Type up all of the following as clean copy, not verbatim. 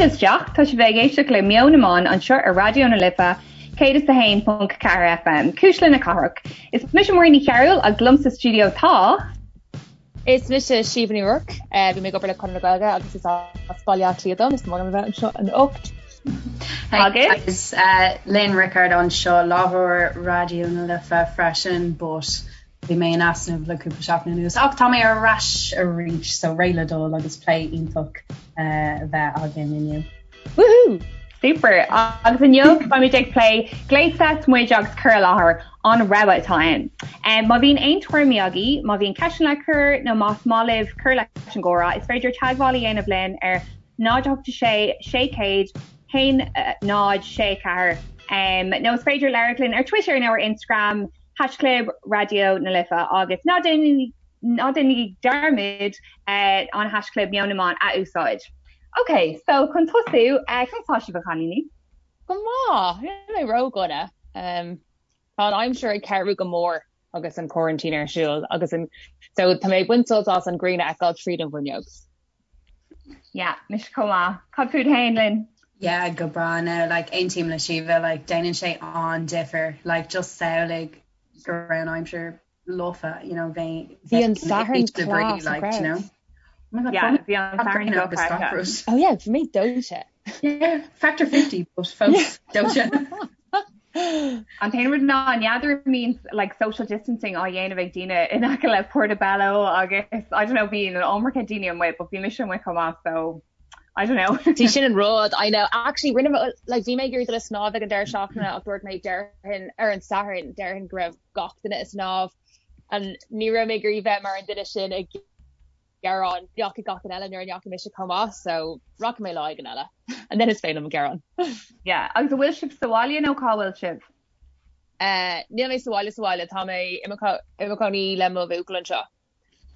Fáilte isteach, tá sibh ag éisteacht le Meon na Meán anseo ar Raidió na Life 101.4 FM, Cuisle na Cathrach. Is mise Máirín Ní Chearúil agus liom sa stiúideo tá. Is mise Síomha Ní Ruairc, bím ag obair le Conradh na Gaeilge agus is as Baile Átha Cliath dom, is maith liom a bheith anseo anocht. Agus? Is Lynn Rickard anseo, láithreoir Raidió na Life freisin, but bhí mé in easnamh le cúpla seachtain anuas ach tá mé ar ais arís so réidh le dul agus plé iontach a bheith againn inniu. Woohoo! Super! Agus inniu beimid ag plé gléasadh, smideadh agus cur i láthair, an rogha atá ann. Má bhíonn aon tuairimí agaibh, má bhíonn ceisteanna le cur nó más maith libh cur leis an gcomhrá, is féidir teagmháil a dhéanamh linn ar 0 8 6 600 1 0 6 4 nó is féidir labhairt linn ar Twitter nó ar Instagram, haischlib Raidió na Life agus ná déanaigí dearmad an haischlib Meon na Meán a úsáid. Ok, so chun tosú, conas tá sibh a chailíní? Go maith, níl mé ródhona. Tá an aimsir ag cabhrú go mór agus an coraintín ar siúl agus an so tá mé ag baint sult as an ghrian a fheiceáil tríd an bhfuinneog. Yeah, mise chomh maith. Cad fút féin, Lynn? Yeah, go breá now, like aontaím le Síomha, like déanann sé an-difear, like just samhlaigh go raibh an aimsir lofa, you know, bheinn Bhí an Satharn class, like, you know. Oh my God, Yeah, bhí an Satharn dochreidte. Oh yeah, bhí mé dóite. Yeah, factor 50, but fós dóite. An t-aon rud ná n'fheadar an mbíonn like social distancing á dhéanamh ag daoine in aice le Portobello agus I don't know bíonn an iomarca daoine amuigh but bhí mise amuigh chomh maith so I don't know. See sin an rud, I know. Actually rinne mé like bhí mé ag iarraidh dul ag snámh ag an deireadh seachtaine ach dúirt mé déarfainn ar an Satharn déarfainn go raibh gach duine ag snámh and ní raibh mé ag iarraidh bheith mar an duine sin ag gearán ndeachaigh gach duine eile nuair a ndeachaigh mise chomh maith so rachaidh mé lá éigin eile and then is féidir liom gearán. Yeah, agus an bhfuil sibh sa bhaile nó cá bhfuil sibh? Uh, níl mé sa bhaile sa bhaile, tá mé i mo i mo chónaí le mo bhuachaill anseo.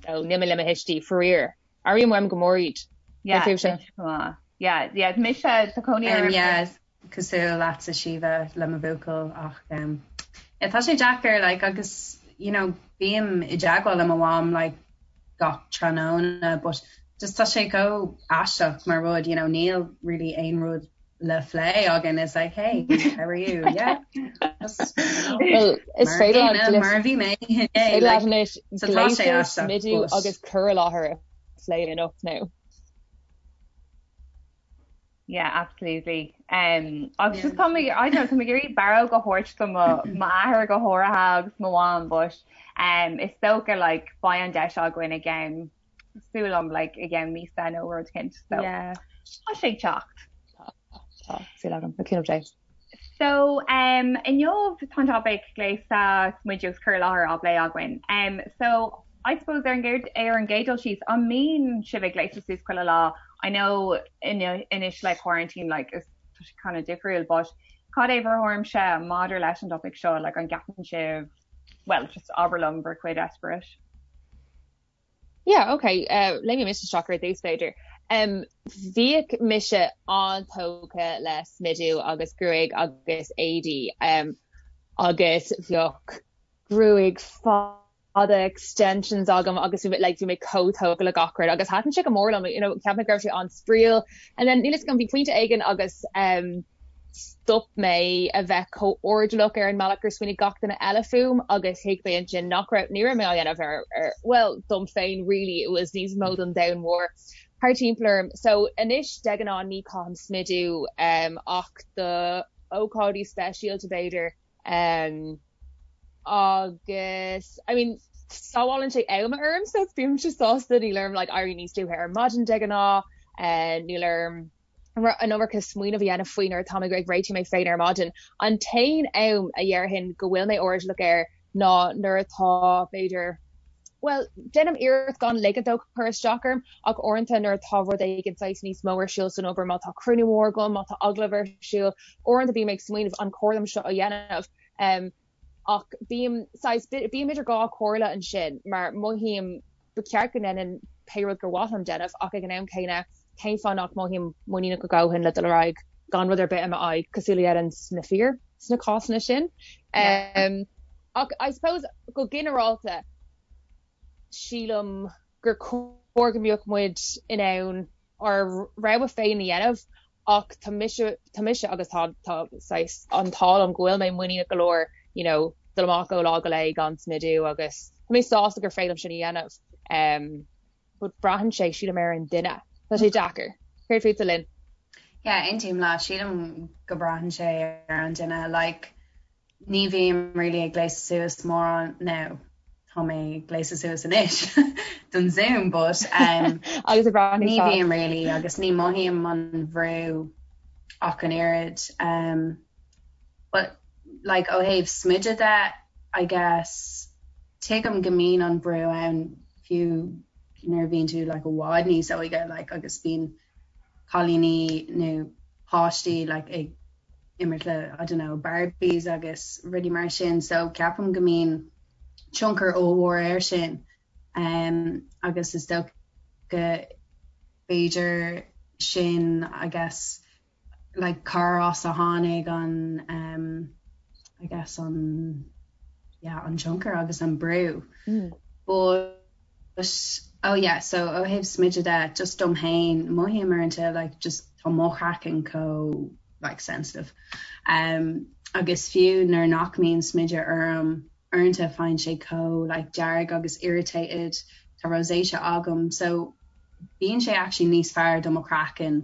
So níl mé le mo thuistí, faraor. Airím uaim go mór iad. Yeah, mise chomh maith. Yeah, yeah, mise tá cónaí orm. Yeah, cosúil leatsa Síomha le mo bhuachaill ach um, yeah, tá sé deacair like, agus you know, bím i dteagmháil le mo mham like, gach tráthnóna but just tá sé chomh aisteach mar rud you know, níl really aon rud le plé againn it's like hey how are you yeah just, well, is féidir mar a bhí mé anois so tá sé aisteach smideadh agus cur i láthair a phlé anocht now. Yeah, absolutely. Um, agus just tá mé I don't know, tá mé ag iarraidh barróg a thabhairt do mo m'athair go háirithe agus mo mham but um, is dócha like beidh an deis againn i gceann súil agam like i gceann míosa nó rud éicint so Yeah. tá sé ag teacht. Tá súil agam le cúnamh Dé. So um, inniu tá an topic gléasadh, smideadh agus cur i láthair á bplé againn. Um, so I suppose ar an gcéad ar an gcéad dul síos, an mbíonn sibh ag gléasadh suas chuile lá? I know anois le quarantine like is tá sé kind of difriúil but cad é bhur thuairimse maidir leis an topic seo like an gceapann sibh well just abair liom bhur gcuid eispéiris. Yeah, ok, uh, léimfidh mise isteach ar dtús b'fhéidir. Um, bhíodh mise an-tógtha le smideadh agus gruaig agus éadaí um, agus bheadh gruaig fada extensions agam agus bhí like bhí mé chomh tógtha le gach rud agus thaitin sé go mór liom you know cheap mé go raibh sé an-spraíúil and then níl a fhios agam bhí pointe éigin agus um stop mé a bheith chomh airdeallach ar an mbealach gur smaoinigh gach duine eile fúm agus thuig mé ansin nach raibh ní raibh mé á dhéanamh ar ar well dom féin really it was níos mó don domhan mór thar timpeall orm so anois de ghnáth ní chaithim smideadh um ach do ócáidí speisialta b'fhéidir Um, agus I mean sábhálann sé am orm so bímse sásta níl orm like éirí níos luaithe ar maidin de ghnáth uh, níl orm an iomarca smaoineamh a dhéanamh faoi nuair atá mé ag réitiú mé féin ar maidin. An t-aon am a dhéarfainn go bhfuil mé airdeallach air ná nuair atá b'fhéidir Well, déanaim iarracht gan ligint dó cur isteach orm, ach uaireanta nuair atá rud éigin saghas níos mó ar siúl san obair, má tá cruinniú mór agam, má tá agallamh ar siúl, uaireanta bím ag smaoineamh an cóir dom seo a dhéanamh? Ach bím saghas, bím idir dhá chomhairle ansin mar mothaím ba cheart go ndéanfainn pé rud gur mhaith liom déanamh ach ag an am céanna cén fáth nach mothaím muiníneach go dhóthain le dul ar aghaidh gan rud ar bith i m'aghaidh cosúil le dhéanann na fir sna cásanna sin. Ach I suppose go ginearálta sílim gur chóir go mbeadh muid in ann ár rogha féin a dhéanamh. Ach tá mise, tá mise agus tá, tá saghas an t-ádh liom go bhfuil mé muiníneach go leor, you know, dul amach ó lá go lá gan smidiú agus tá mé sásta gur féidir liom sin a dhéanamh. Um, but braitheann sé, sílim, ar an duine. Tá sé deacair. Céard fútsa, Lynn? Yeah, aontaím leat. Sílim go braitheann sé ar an duine. Like, ní bhím really ag gléasadh suas mórán now. Tá mé ag gléasadh suas anois don Zoom, but um, Agus ag breathnú ní bhím really agus ní mothaím an bhrú ach an oiread. Um, but like ó thaobh smideadh de, I guess, tuigim go mbíonn an brú ann fiú nuair a bhíonn tú like i bhfad níos óige like agus bíonn cailíní nó páistí like ag imirt le I don't know Barbies agus rudaí mar sin so ceapaim go mbíonn tionchar ollmhór air sin um agus is dócha b'fhéidir sin I guess like cár as a tháinig an um I guess an yeah an tionchar agus an brú mm. but oh yeah so ó thaobh smideadh de just dom féin mothaím uaireanta like just tá mo chraiceann chomh like sensitive um agus fiú nuair nach mbíonn smideadh orm uaireanta faigheann sé chomh like dearg agus irritated tá rosacea agam so bíonn sé actually níos fearr do mo chraiceann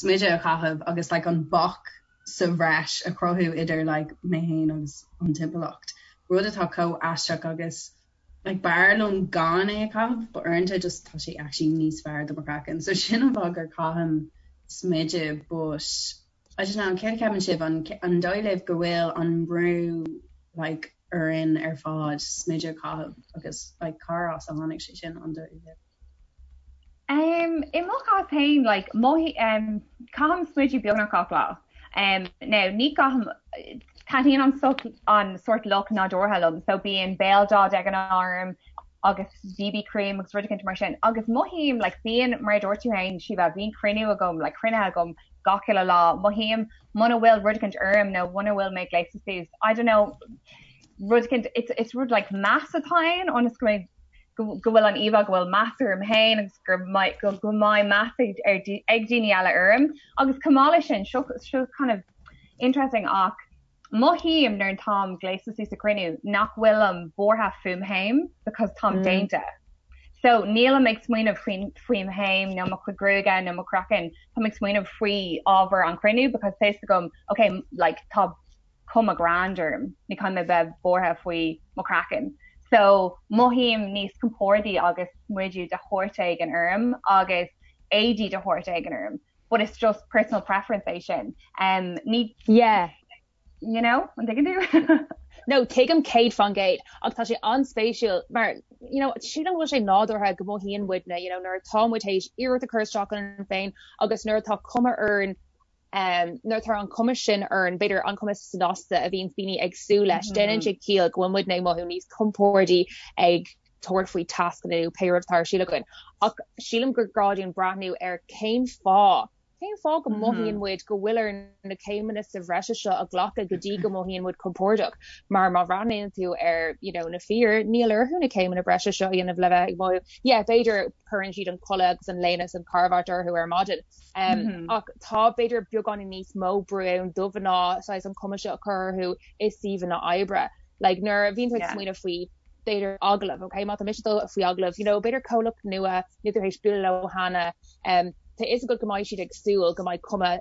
smideadh a chaitheamh agus like an bac sa bhreis a chruthú idir like mé féin agus an timpeallacht rud atá chomh aisteach agus like b'fhearr liom gan é a chaitheamh but uaireanta just tá sé actually níos fearr do mo chraiceann so sin an fáth gur caithim smideadh but I don't know, céard a cheapann sibh, an an dóigh libh go bhfuil an brú like orainn ar fad smideadh a chaitheamh agus like cár as a tháinig sé sin an dóigh libh? Um, i mo chás féin like mo um, caithim smideadh beagnach gach lá. Um, now ní caithim taitníonn an so an sort look nádúrtha liom, so bíonn béaldath de ghnáth orm agus BB cream agus rud éicint mar sin. Agus mothaím like bíonn mar a dúirt tú féin Síomha, bíonn cruinniú agam like cruinnithe agam gach uile lá. Mothaím muna bhfuil rud éicint orm nó muna bhfuil mé gléasta suas, I don't know, rud éicint, it's, it's rud like meas atá ann ionas go mbeidh go bhfuil an íomhá go bhfuil meas orm féin agus go mbeidh go, go mbeidh meas ag, ar, ag daoine eile orm. Agus chomh maith leis sin, seo, seo kind of interesting ach mothaím nuair atáim gléasta suas do chruinniú nach bhfuilim buartha fúm féin because táim mm. déanta. So nílim ag smaoineamh faoin faoim féin nó mo chuid gruaige nó mo chraiceann, táim ag smaoineamh faoi ábhar an chruinniú because tá fhios agam okay like tá cuma grand orm, ní caithfidh mé bheith buartha faoi mo chraiceann. So mothaím níos compordaí agus smideadh de shórt éigin orm agus éadaí de shórt éigin orm. But it's just personal preference é sin. Um, ní yeah. You know, an dtuigeann tú? No, tuigim 100% ach tá sé an-spéisiúil mar you know, sílim go bhfuil sé nádúrtha go mothaíonn muidne you know, nuair atá muid théis iarracht a chur isteach orainn féin agus nuair atá cuma orainn um, nuair atá an cuma sin orainn, b'fhéidir an cuma snasta a bhíonn daoine ag súil leis, mm -hmm. déanann sé ciall go bhfuil muidne ag mothú níos compordaí ag tabhairt faoi tascanna nó pé rud atá ar siúl againn. Ach sílim gur gá dúinn breathnú ar cén fáth Cén fáth go mothaíonn muid go bhfuil orainn na céimeanna sa bhreise seo a ghlacadh go dtí go mothaíonn muid compordach? Mar má bhreathnaíonn tú ar you know na fir, níl orthu na céimeanna breise seo a dhéanamh le bheith ag mothú, yeah, b'fhéidir cuireann siad an culaith agus an léine is an carbhat orthu ar maidin. Um, mm -hmm. Ach tá b'fhéidir beagáinín níos mó brú ann do mhná saghas an cuma seo a chur orthu i suíomhanna oibre. Like nuair a bhíonn tú ag smaoineamh faoi b'fhéidir agallamh, ok, má tá mise ag dul faoi agallamh, you know, b'fhéidir comhlacht nua, níl tú théis bualadh leo cheana, um, tá fhios agat go mbeidh siad ag súil go mbeidh cuma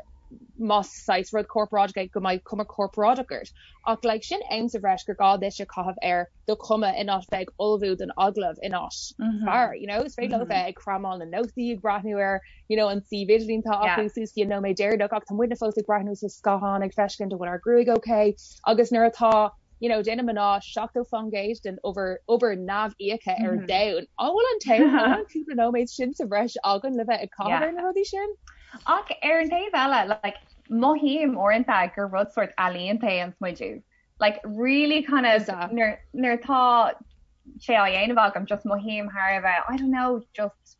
más saghas rud corparáideach é go mbeidh cuma corparáideach ort. Ach like sin am sa bhreis gur gá duit a chaitheamh ar do chuma in áit bheith ag ullmhú don agallamh in áit mm-hmm. fear, you know, is féidir leo mm-hmm. bheith ag cramáil na nótaí ag breathnú ar you know, an suíomh idirlín atá acu yeah. suas go dtí an nóiméad deireanach ach tá muidne fós ag breathnú sa scáthán ag feiscint an bhfuil ár gruaig okay agus nuair atá you know, déanann mná 70% den obair, obair neamhíoctha ar mm -hmm. domhan. An bhfuil an t-am an bhfuil an cúpla nóiméad sin sa bhreis againn le bheith ag caitheamh ar na rudaí sin? Ach ar an taobh eile, like, mothaím uaireanta gur rud sort ealaíonta é an smideadh. Like, really kind of nuair nuair atá sé á dhéanamh agam just mothaím thar a bheith, I don't know, just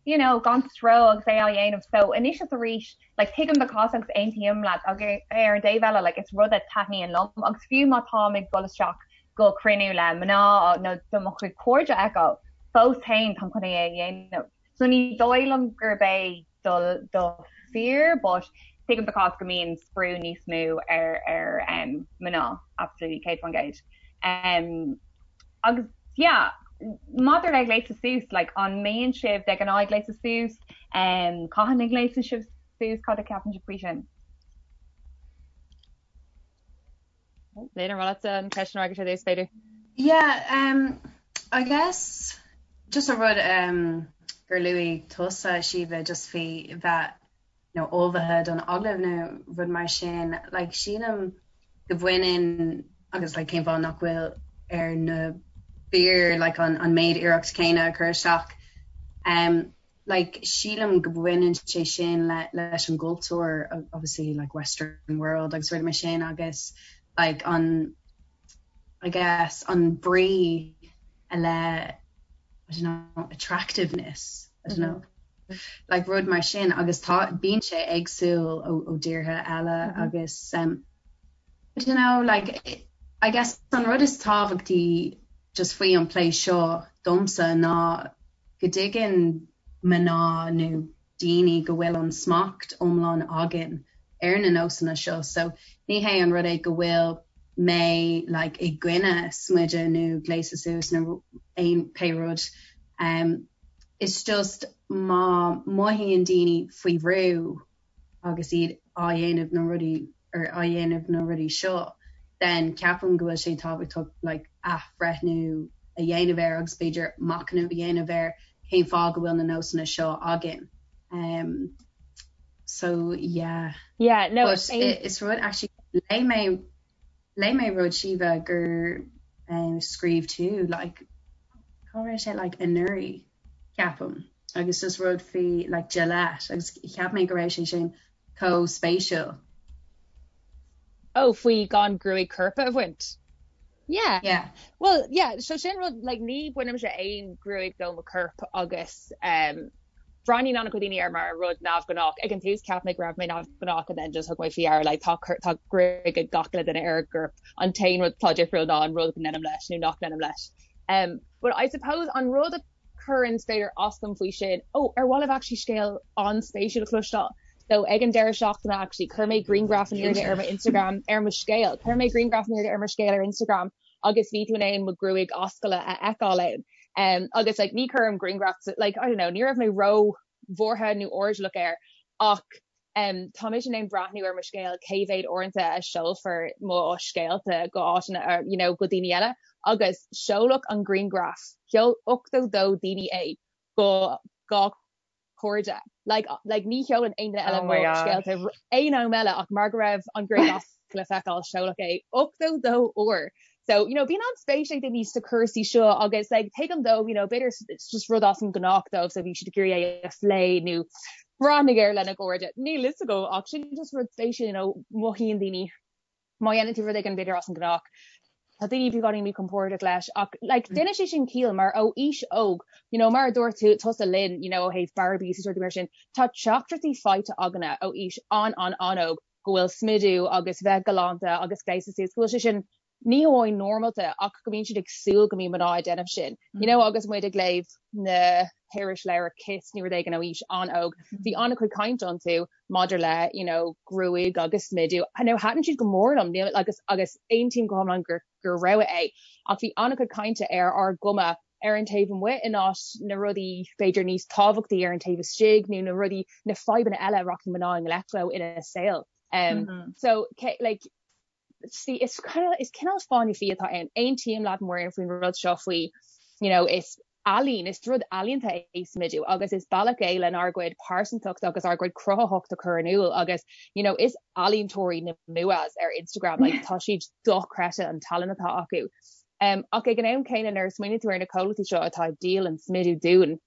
you know, gan stró agus é á dhéanamh. So anois is arís, like tuigim do chás agus aontaím leat ach ar an dtaobh eile like is rud a taitníonn liom agus fiú má táim ag dul isteach go cruinniú le mná nó do mo chuid cairde a fheiceáil, fós féin táim chun é a dhéanamh. So ní dóigh liom gurb é do do fir but Tuigim do chás go mbíonn brú níos mó ar ar um, mná absolutely 100%. Um, agus yeah, maidir le gléasadh suas like, an mbíonn sibh de ghnáth ag gléasadh suas, um, cathain a ghléasann sibh suas, cad a cheapann sibh faoi sin? Lynn, ar mhaith leat an ceist a fhreagairt ar dtús, b'fhéidir? Yeah, um, I guess just a rud um, gur luaigh tusa, Síomha, just faoi bheith you know, ullmhaithe don agallamh nó rud mar sin, like, sílim go bhaineann agus like, cén fáth nach bhfuil ar na fir like, an, an méid iarracht céanna a chur isteach. Um, like, sílim go bhaineann sé sin le, leis an gcultúr, obviously, like, western world agus rudaí mar sin agus like, an I guess an brí le I don't know, attractiveness, I don't know. Like rud mar sin agus tá bíonn sé éagsúil ó, ó dtíortha eile mm -hmm. agus um, I don't know, like I guess an rud is tábhachtaí just faoi an plé seo domsa ná go dtuigeann mná nó daoine go bhfuil an smacht iomlán againn ar na nósanna seo so ní hé an rud é go bhfuil mé like i gcoinne smideadh nó gléasadh suas nó aon pé rud um, it's just má mothaíonn daoine faoi bhrú agus iad á dhéanamh na rudaí or á dhéanamh na rudaí seo then ceapaim go bhfuil sé tábhachtach like athbhreithniú a dhéanamh air agus b'fhéidir machnamh a dhéanamh ar cén fáth go bhfuil na nósanna seo againn. Um, so yeah. Yeah, no, But is rud actually léigh mé Léigh mé rud Síomha gur scríobh tú like cá raibh sé like anuraidh ceapaim agus just rud faoi like Gillette agus cheap mé go raibh sé sin chomh spéisiúil. Oh faoi gan gruaig coirpe a bhaint? Yeah. Yeah. Well yeah so sin rud like ní bhainimse aon gruaig ó mo corp agus um Breathnaíonn an-chuid daoine air mar rud neamhghnách. Ag an tús cheap mé go raibh mé neamhghnách and then just thug mé faoi deara like tá tá gruaig ag gach uile duine ar a gcorp. An t-aon rud atá difriúil ná an rud go ndeinim leis nó nach ndeinim leis. Um, but I suppose an rud a chuireann b'fhéidir as dom faoi sin, oh, ar mhaith libh actually scéal an-spéisiúil a chloisteáil? So ag an deireadh seachtaine actually chuir mé grianghraf in airde ar mo Instagram ar mo scéal. Chuir mé grianghraf in airde ar mo scéal ar Instagram agus bhí tú in ann mo ghruaig ascaille a fheiceáil ann. Um, agus like, ní chuirim grianghraf like, I don't know, ní raibh mé ró-bhuartha nó airdeallach air ach um, tá mise in ann breathnú ar mo scéal cé mhéad uaireanta a seolfar mo scéalta go áiteanna uh, you know, go daoine eile agus seoladh an grianghraf sheol 82 daoine é go gach cairde. Like like ní sheolann aon duine eile oh mo scéalta aon am eile ach mar go raibh an ghruaig ascaille le feiceáil seoladh é 82 uair. So you know bíonn an-spéis ag daoine sna cúrsaí seo agus like tuigim dóibh you know b'fhéidir it's just rud as an gnách dóibh so bhí siad ag iarraidh é a phlé nó breathnaigh air lena gcairde. Níl fhios agam ach sin just rud spéisiúil you know mothaíonn daoine má dhéanann tú rud éigin b'fhéidir as an gnách, tá daoine beagáinín míchompordach leis ach like déanann sé sin ciall mar ó aois óg you know mar a dúirt tú tusa Lynn you know ó thaobh Barbies is rudaí mar sin tá teachtaireachtaí faighte againne ó aois an an an-óg go bhfuil smidiú agus bheith galánta agus gléasadh suas go bhfuil sé sin ní hamháin normálta ach go mbíonn siad ag súil go mbíonn mná ag déanamh sin you know agus muid ag léamh na hirisleabhair Kiss nó rud éigin ó aois an-óg bhí an-chuid cainte iontu maidir le you know gruaig agus smidiú. Now thaitin siad go mór liom níl agus agus aontaím go hiomlán gur gur rogha é ach bhí an-chuid cainte ar ár gcuma ar an taobh amuigh in áit na rudaí b'fhéidir níos tábhachtaí ar an taobh istigh nó na rudaí na fadhbanna eile a rachaidh mná i ngleic leo ina saol. Um, mm -hmm. So like See, is is cineál fáinne fí atá ann. Aontaím leat Muireann faoin rud seo faoi you know, is ealaín, is rud ealaíonta é smidiú agus is bealach é lenár gcuid pearsantacht agus ár gcuid cruthaitheacht a chur in iúl agus you know, is ealaíontóirí na MUAs ar Instagram, like, tá siad dochreidte an tallann atá acu. Um, ach ag an am céanna nuair a smaoiníonn tú ar na comhlachtaí seo atá ag díol an smidiú dúinn,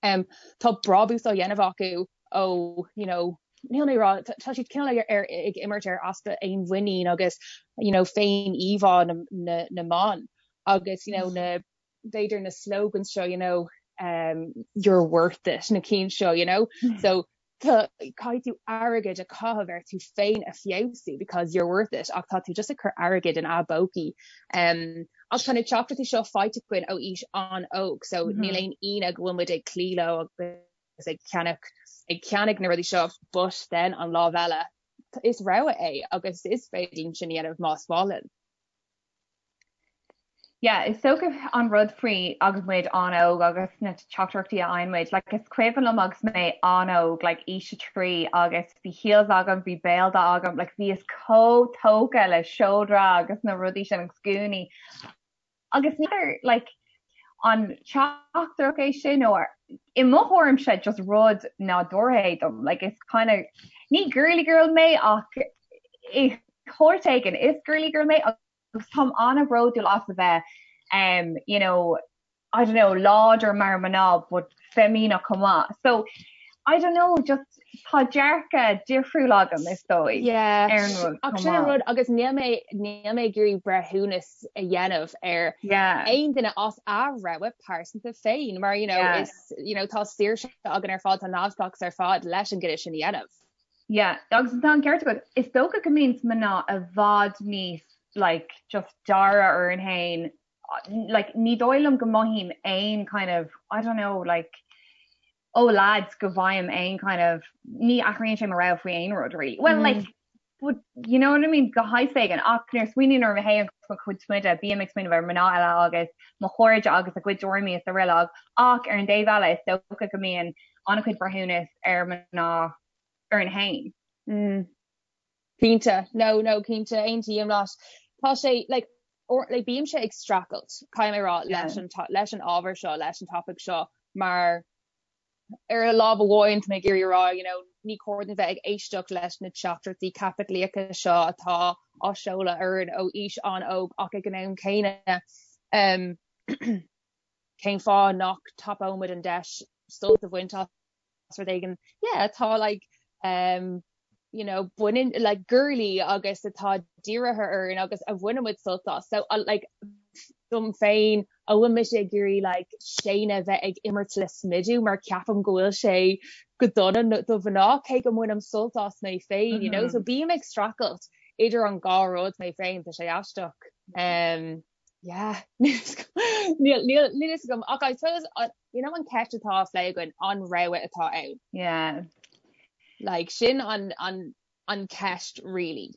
Um, tá brabús á dhéanamh acu ó you know, níl mé ag rá tá siad cineál ar ag imirt ar easpa féinmhuinín agus you know, féin íomhá na, na, na mban agus you know, na b'fhéidir na slogans seo you know, um, you're worth it na cinn seo you know mm. so tá caithfidh tú airgead a chaitheamh ar tú féin a fheabhsú because you're worth it ach tá tú just ag cur airgead in a bpócaí. Um, ach tá na teachtaireachtaí seo faighte againn ó aois an-óg so mm -hmm. níl aon ionadh go bhfuil muid ag cloí leo agus. agus ag ceannach ag ceannach na rudaí seo but then an lámh eile is rogha é agus is féidir linn sin a dhéanamh más maith linn. Yeah, is dócha an rud faoi agus muid an-óg agus na teachtaireachtaí a fhaigheann muid, like is cuimhin liom agus mé an-óg, like aois a 3 agus bhí heels agam, bhí béaldath agam, like bhíos chomh tógtha le seodra agus na rudaí sin agus gúnaí. Agus ní like an teachtaireacht é sin nó i mo thuairimse just rud nádúrtha é dom, like is kind of ní girly girl mé ach i sórt éigin is girly girl mé agus táim an-bhródúil as a bheith um, you know, I don't know, láidir mar mná but feimineach chomh maith. So I don't know, just tá dearcadh difriúil agam is dóigh Yeah, ar an rud ach sin an rud agus níl mé níl mé ag iarraidh breithiúnas a dhéanamh ar yeah. aon duine as a rogha pearsanta féin mar you know, yeah. is you know, tá saoirse againn ar fad tá neamhspleáchas ar fad leis an gcinneadh sin a dhéanamh. Yeah, agus tá an ceart agat, is dócha go mbíonn mná i bhfad níos like just dáiríre orainn féin like ní dóigh liom go mothaím aon kind of I don't know like ó lads go bhfaighim aon kind of ní athraíonn sé mo rogha faoi aon rud really. Well mm. like but you know what I mean go háit éigin ach nuair smaoiním orm féin agus mo chuid smideadh bím ag smaoineamh ar mná eile agus mo chairde agus a gcuid tuairimí is araile ach ar an dtaobh eile is dócha go mbíonn an-chuid breithiúnas ar mná orainn féin. Mm. Cinnte, no, no, cinnte, aontaím leat. Tá sé, like, or, like, bímse ag streachailt, caithfidh mé rá, leis an, leis an ábhar seo, leis an topic seo, mar ar lámh amháin tá mé ag iarraidh a rá, you know, ní cóir dúinn bheith ag éisteacht leis na teachtaireachtaí caipitlíocha seo atá á seoladh orainn ó aois an-óg ach ag an am céanna, um, cén fáth nach dtapóimid an deis sult a bhaint as rud éigin yeah atá like um you know baineann like girly agus atá dírithe orainn agus a bhaineann muid sult as so uh, like dom féin an bhfuil mise ag iarraidh like séanadh bheith ag imirt le smidiú mar ceapaim go bhfuil sé go dona do mhná cé go mbainim sult as mé féin you know mm -hmm. so bím ag streachailt idir an dhá rud mé féin tá sé aisteach um Yeah níl níl níl fhios agam ach I suppose uh, you know an ceist atá á phlé againn an rogha atá ann. Yeah. Like sin an an an ceist really.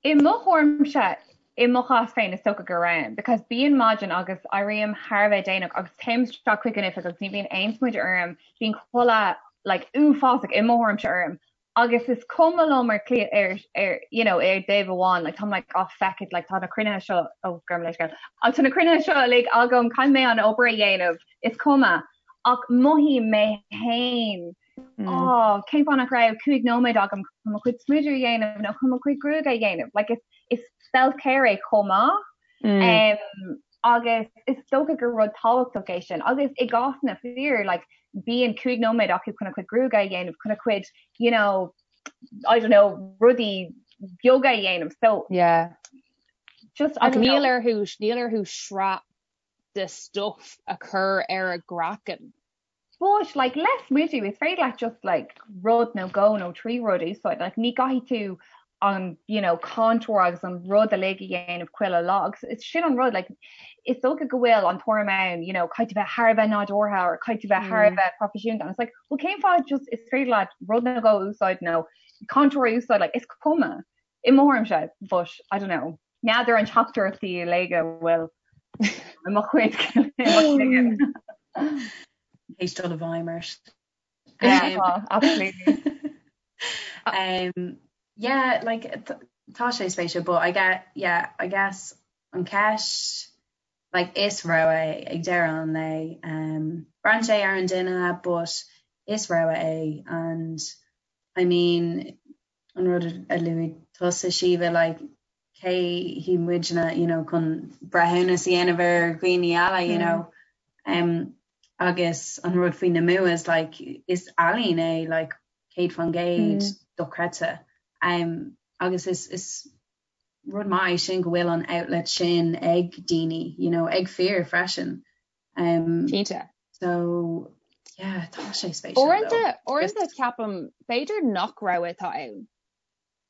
I mo thuairimse i mo chás féin is dócha gur ann because bíonn maidin agus éirím thar a bheith déanach agus téim isteach chuig an oifig agus ní bhíonn aon smideadh orm bíonn codladh like uafásach i mo thuairimse orm agus is cuma liom ar clí ar ar you know ar dtaobh amháin like táim like oh feck it like tá na cruinnithe seo oh gabh mo leithscéal ach tá na cruinnithe seo uilig agam caithfidh mé an obair a dhéanamh is cuma ach mothaím mé féin mm. oh cén fáth nach raibh 5 nóiméad agam chun mo chuid smideadh a dhéanamh nó chun mo chuid gruaige a dhéanamh like is is self care é chomh maith mm. um, agus is dócha gur rud tábhachtach é sin agus i gcás na fir like bíonn 5 nóiméad acu chun a chuid gruaige a dhéanamh chun a chuid you know I don't know rudaí beaga a dhéanamh so yeah just ach níl orthu níl orthu sraith de stuff a chur ar a gcraiceann. But like le smideadh is féidir leat just like rud nó dhó nó 3 rud a úsáid like ní gcaithfidh tú an you know contour agus an rud uilig a dhéanamh chuile lá agus is sin an rud like is dócha go bhfuil an tuairim ann you know caithfidh tú bheith thar a bheith nádúrtha or caithfidh tú bheith thar a mm. bheith proifisiúnta and it's like well cén fáth just is féidir leat rud nó dhó a úsáid nó contour a úsáid like is cuma i mo thuairimse but I don't know n'fheadar an teachtaireachtaí uilig a bhfuil i mo chuid Théis dul i bhfeidhm ort. Yeah, absolutely. Um, yeah, like tá sé spéisiúil, but I get yeah, I guess an ceist like is rogha é ag deireadh an lae. Um, braitheann sé ar an duine, but is rogha é and I mean an rud a luaigh tusa Síomha like cé hí muidne you know chun breithiúnas a dhéanamh ar dhaoine eile you know um, agus an rud faoi na MUAs like is ealaín é like 100% mm. dochreidte um, agus is is rud maith é sin go bhfuil an outlet sin ag daoine you know ag fir freisin um, Cinnte. so yeah tá sé spéisiúil Uaireanta uaireanta ceapaim b'fhéidir nach rogha atá ann.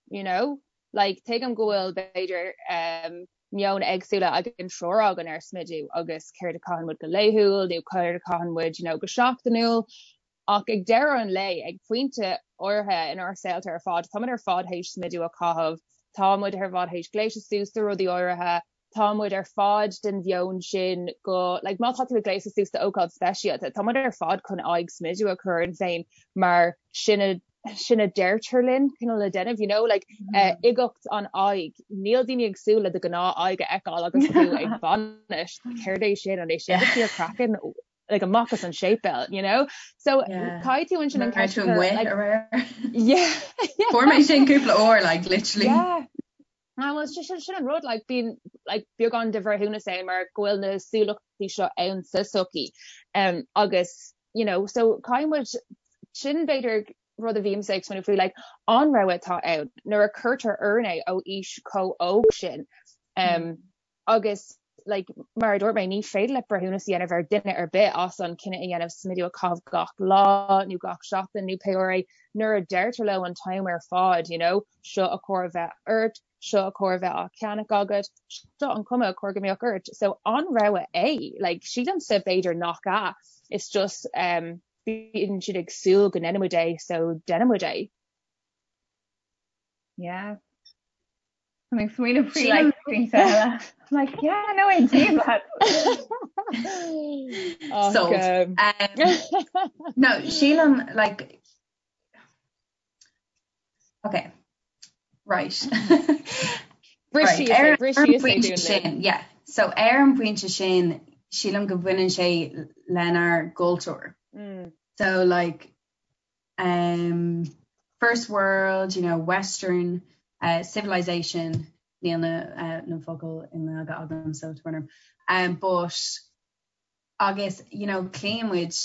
You know? Like tuigim go bhfuil b'fhéidir um, meon éagsúla ag an triúr againn ar smidiú agus céard a chaitheann muid go laethúil nó céard a chaitheann muid you know, go seachtainiúil. Ach ag deireadh an lae, ag pointe áirithe inár saolta ar fad, tá muid ar fad théis smidiú a chaitheamh, tá muid ar fad théis gléasadh suas do rudaí áirithe, tá muid ar fad den mheon sin go, like, má tá tú ag gléasadh suas d'ócáid speisialta, tá muid ar fad chun aghaidh smidiú a chur orainn féin mar sin a sin a deirtear linn cineál le déanamh, you know, like, uigeacht an aghaidh, níl daoine ag súil le do ghnáth aghaidh a fheiceáil agus tú ag bainis, céard é sin, an é sin do fíor craiceann? like amach as an séipéal, you know? So caithfidh tú ansin an ceist a chur, like, yeah, yeah. Fuair mé sin cúpla uair, like, literally. Yeah. Ah, well, sin, sin an rud, like, bíonn, like, beagán de bhreithiúnas ann mar go bhfuil na súlachtaí seo ann sa tsochaí. Um, agus, you know, so caithfidh muid, sin b'fhéidir rud a bhímse ag smaoineamh faoi, like, an rogha atá ann nuair a cuirtear orainn é ó aois chomh óg sin. Um, Agus, like, mar a dúirt mé, ní féidir leat breithiúnas a dhéanamh ar duine ar bith as an cinneadh a dhéanamh smidiú a chaitheamh gach lá nó gach seachtain nó pé uair é, nuair a deirtear leo an t-am ar fad, you know, seo a chóir a bheith ort, seo a chóir a bheith á cheannach agat, seo an cuma a chóir go mbeadh ort. So, an rogha é? Like, sílimse b'fhéidir nach ea. It's just, um, bíonn siad ag súil go ndéanfaidh muid é, so déanann muid é. Yeah. Tá mé ag smaoineamh faoi like pointe eile. I'm like, yeah, no, aontaím leat. Sold. Um, no, sílim like Okay. Right. Right. Ar an bpointe sin, yeah. So ar an bpointe sin, sílim go bhaineann sé lenár gcultúr. Mm. So like um, first world, you know, western uh, civilization, níl na, uh, na focail i nGaeilge agam so tabhair orm. Um, but agus you know, cloíonn muid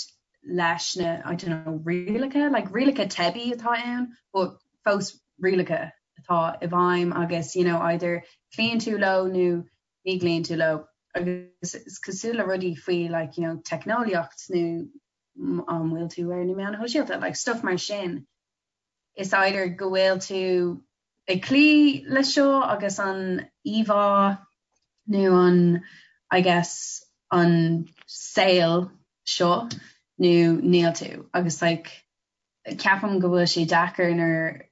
leis na I don't know, rialacha, like rialacha teibí atá ann, but fós rialacha atá i bhfeidhm agus you know, either cloíonn tú leo nó ní gcloíonn tú leo. Agus is cosúil le rudaí faoi like, you know, teicneolaíocht nó an bhfuil tú ar na meáin shóisialta, like stuff mar sin. Is either go bhfuil tú ag cloí le seo agus an íomhá nó an, I guess, an saol seo nó níl tú. Agus like ceapaim go bhfuil sé deacair nuair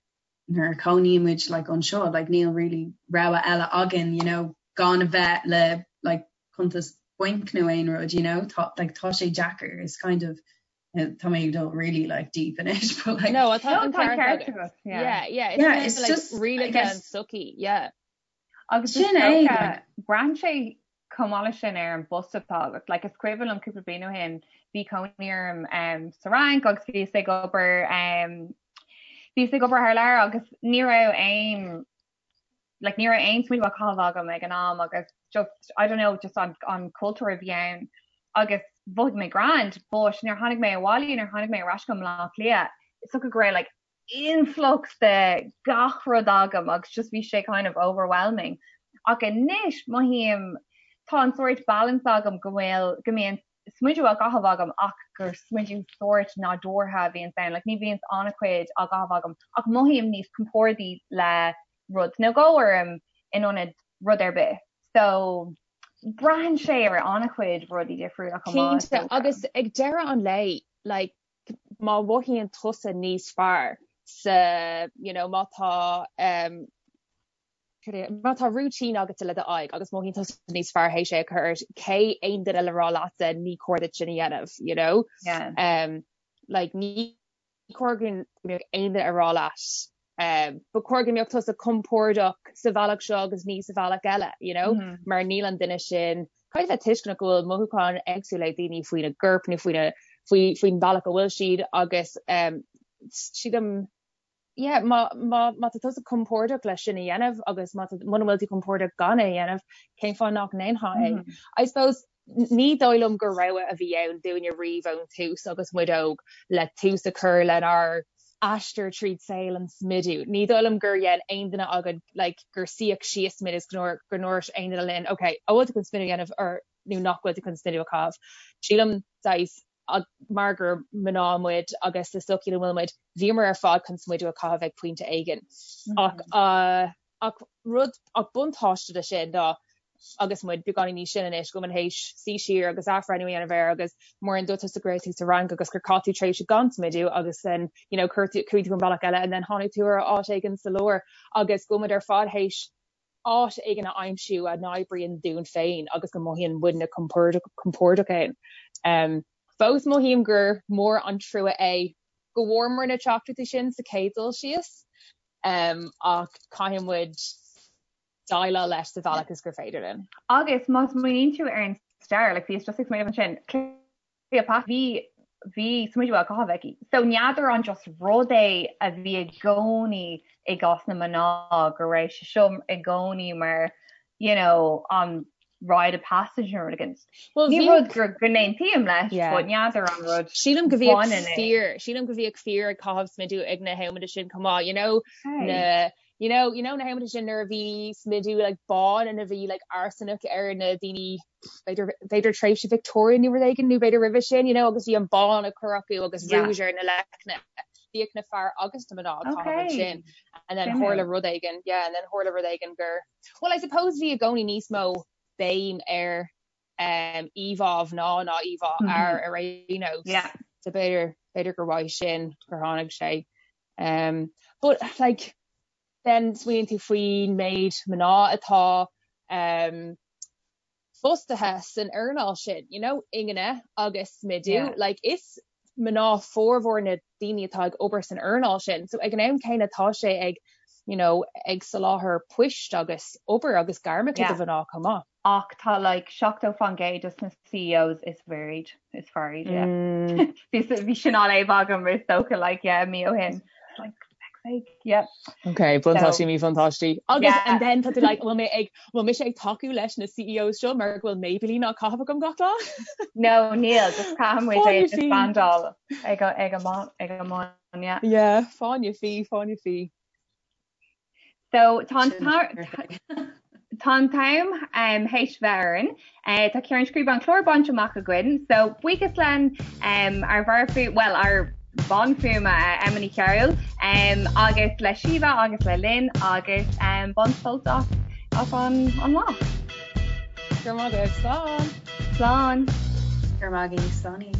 nuair a chónaíonn muid like anseo, like níl really rogha eile againn, you know, gan a bheith le like cuntas bainc nó aon rud, you know, tá like tá sé deacair, it's kind of tá mé ag dul really like deep anois but like No, tá an ceart agat. Yeah, yeah, it's, yeah, it's like just really an tsochaí, yeah. Agus sin é braitheann sé chomh maith leis sin ar an bpost atá agat. Like is cuimhin liom cúpla bliain ó shin bhí cónaí orm um, sa Fhrainc agus bhíos ag obair um, bhíos ag obair thar lear agus ní raibh aon like ní raibh aon smidiú á chaitheamh agam ag an am agus just I don't know just an, an cultúr a bhí ann agus mhothaigh mé grand but nuair tháinig mé abhaile nuair tháinig mé ar ais go Baile Átha Cliath is dócha go raibh like influx de gach rud agam agus just bhí sé kind of overwhelming. Ach anois mothaím tá an sórt balance agam go bhfuil go mbíonn smidiú á gcaitheamh agam ach gur smidiú sórt nádúrtha a bhíonns ann, like ní bhíonns an-chuid á gcaitheamh agam ach mothaím níos compordaí le rud nó dhó orm in ionad rud ar bith. So braitheann sé ar an-chuid rudaí difriúla chomh maith. Cinnte, agus ag deireadh an lae, like, má mhothaíonn tusa níos fearr sa, you know, má tá um, má tá routine agatsa le do aghaidh agus mothaíonn tusa níos fearr théis é a chur ort, cé aon duine le rá leatsa ní cóir duit sin a dhéanamh, you know? Yeah. Um, like, ní cóir go mbeadh aon duine a rá leat um, ba chóir go mbeadh tusa compordach sa bhealach seo agus ní sa bhealach eile, you know? Mm -hmm. Mar níl an duine sin caithfidh bheith tuisceanach go bhfuil mothúcháin éagsúla ag daoine faoina gcorp nó faoina faoi faoin bhealach a bhfuil siad agus um, sílim yeah, má má má tá tusa compordach leis sin a dhéanamh agus má tá muna bhfuil tú compordach gan é a dhéanamh, cén fáth nach ndéanfá é? Mm -hmm. I suppose ní dóigh liom gur rogha a bhí ann dúinne riamh ón tús agus muid óg le tús a chur lenár aistear tríd saol an smidiú. Ní dóigh liom gur dhein aon duine againn like gur suíodh síos muid is go ndúirt aon duine linn ok, an bhfuil tú chun smidiú a dhéanamh or nó nach bhfuil tú chun smidiú a chaitheamh. Sílim saghas mar gur mná muid agus sa tsochaí ina bhfuil muid, bhíomar ar fad chun smidiú a chaitheamh ag pointe éigin. Ach ach rud ach buntáiste de sin ná. agus muid beagáinín níos sine anois, go bhfuil muid théis suí siar agus athbhreithniú a dhéanamh air agus maireann tusa go raibh tú sa Fhrainc agus gur chaith tú tréimhse gan smidiú agus then you know chuir tú chuaigh tú an bealach eile and then tháinig tú ar áit éigin sa lár agus go bhfuil muid ar fad théis áit éigin a aimsiú a n-oibríonn dúinn féin agus go mothaíonn muidne compordach ann. Um, fós mothaím gur mór an trua é go bhfuaireamar na teachtaireachtaí sin sa chéad dul síos um, ach caithfidh muid déileáil leis sa bhealach is gur féidir linn. Agus má smaoiníonn tú ar an stair, like bhíos just ag smaoineamh ansin, Cleopatra, bhí, bhí smideadh á chaitheamh aici. So n'fheadar an just rud é a bhí i gcónaí i gcás na mná go raibh sé seo i gcónaí mar, you know, an rite of passage nó rud éigin. Well, Ní rud gur go n-aontaím leis, yeah. but n'fheadar an rud Sílim go bhíodh fir, sílim go bhíodh fir ag caitheamh smidiú ag na hamanta sin chomh maith, you know, hey. na You know, you know na hamanta sin nuair a bhí smidiú like bán and a bhí like arsenic ar na daoine b'fhéidir b'fhéidir tréimhse Victoria nó rud éigin nó b'fhéidir roimhe sin, you know, agus bhí an bán á chur acu agus yeah. rouge ar na leicne. Bhíodh na fear agus na mná ag caitheamh ansin. And then tharla rud éigin, yeah, and then tharla rud éigin gur Well, I suppose bhí i gcónaí níos mó béim ar um, íomhá mhná ná íomhá mm -hmm. fhear ar aon nós. Yeah. So b'fhéidir b'fhéidir gur uaidh sin gur tháinig sé. Um, but like then smaoiníonn tú faoin méid mná atá um, fostaithe san earnáil sin, you know, ingne agus smidiú, yeah. like is mná formhór na daoine atá ag obair san earnáil sin. So ag an am céanna tá sé ag you know, ag soláthar poist agus obair agus gairmeacha yeah. do mhná chomh maith. Ach tá like 70% dos na CEOs is fear iad, is fear iad, yeah. Mm. Bhí sin á léamh agam is dócha like yeah, mí ó shin. Like, sake, yeah. Ok, buntáistí míbhuntáistí. Agus yeah. and then tá tú like bhfuil mé ag bhfuil mise ag tacú leis na CEOs seo mar go bhfuil Maybelline á caitheamh agam gach lá? No, níl, just caithfidh muid é just bandáil ag ag an ag an mbun, yeah. Yeah, fáinne fí, fáinne fí. So tá Tá an t-am um, théis bheith orainn. Uh, tá ceann scríbe an chláir bainte amach againn, so buíochas len um, ár bhfear fuaime, well ár bean fuaime uh, Emma Ní Chearúil um, agus le Síomha agus le Lynn agus um, bain sult as, as an, an lá. Go raibh maith agaibh, slán! Slán! Go raibh maith agaibh, slán.